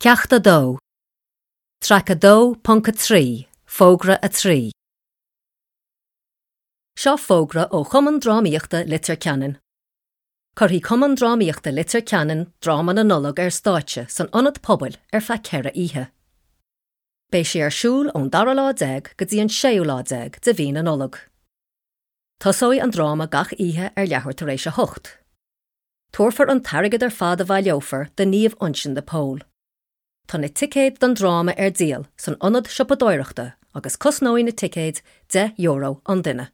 Ceacht 2, Traic 2.3, Fógra 3. Seo fógra ó Chumann Drámaíochta Leitir Ceanainn. Cuirfidh Cumann Drámaíochta Leitir Ceanainn dráma na Nollag ar stáitse san Ionad Pobail ar feadh 4 oíche. Beidh sé ar siúl ón dara lá déag go dtí an séú lá déag de mhí na Nollag. Tosóidh an dráma gach oíche ar leathuair tar éis a hocht. Tabharfar an t-airgead ar fad a bhaileofar do Naomh Uinseann de Pól. Tá na ticéid don dráma ar díol san ionad siopadóireachta agus cosnóidh na ticéid €10 an duine.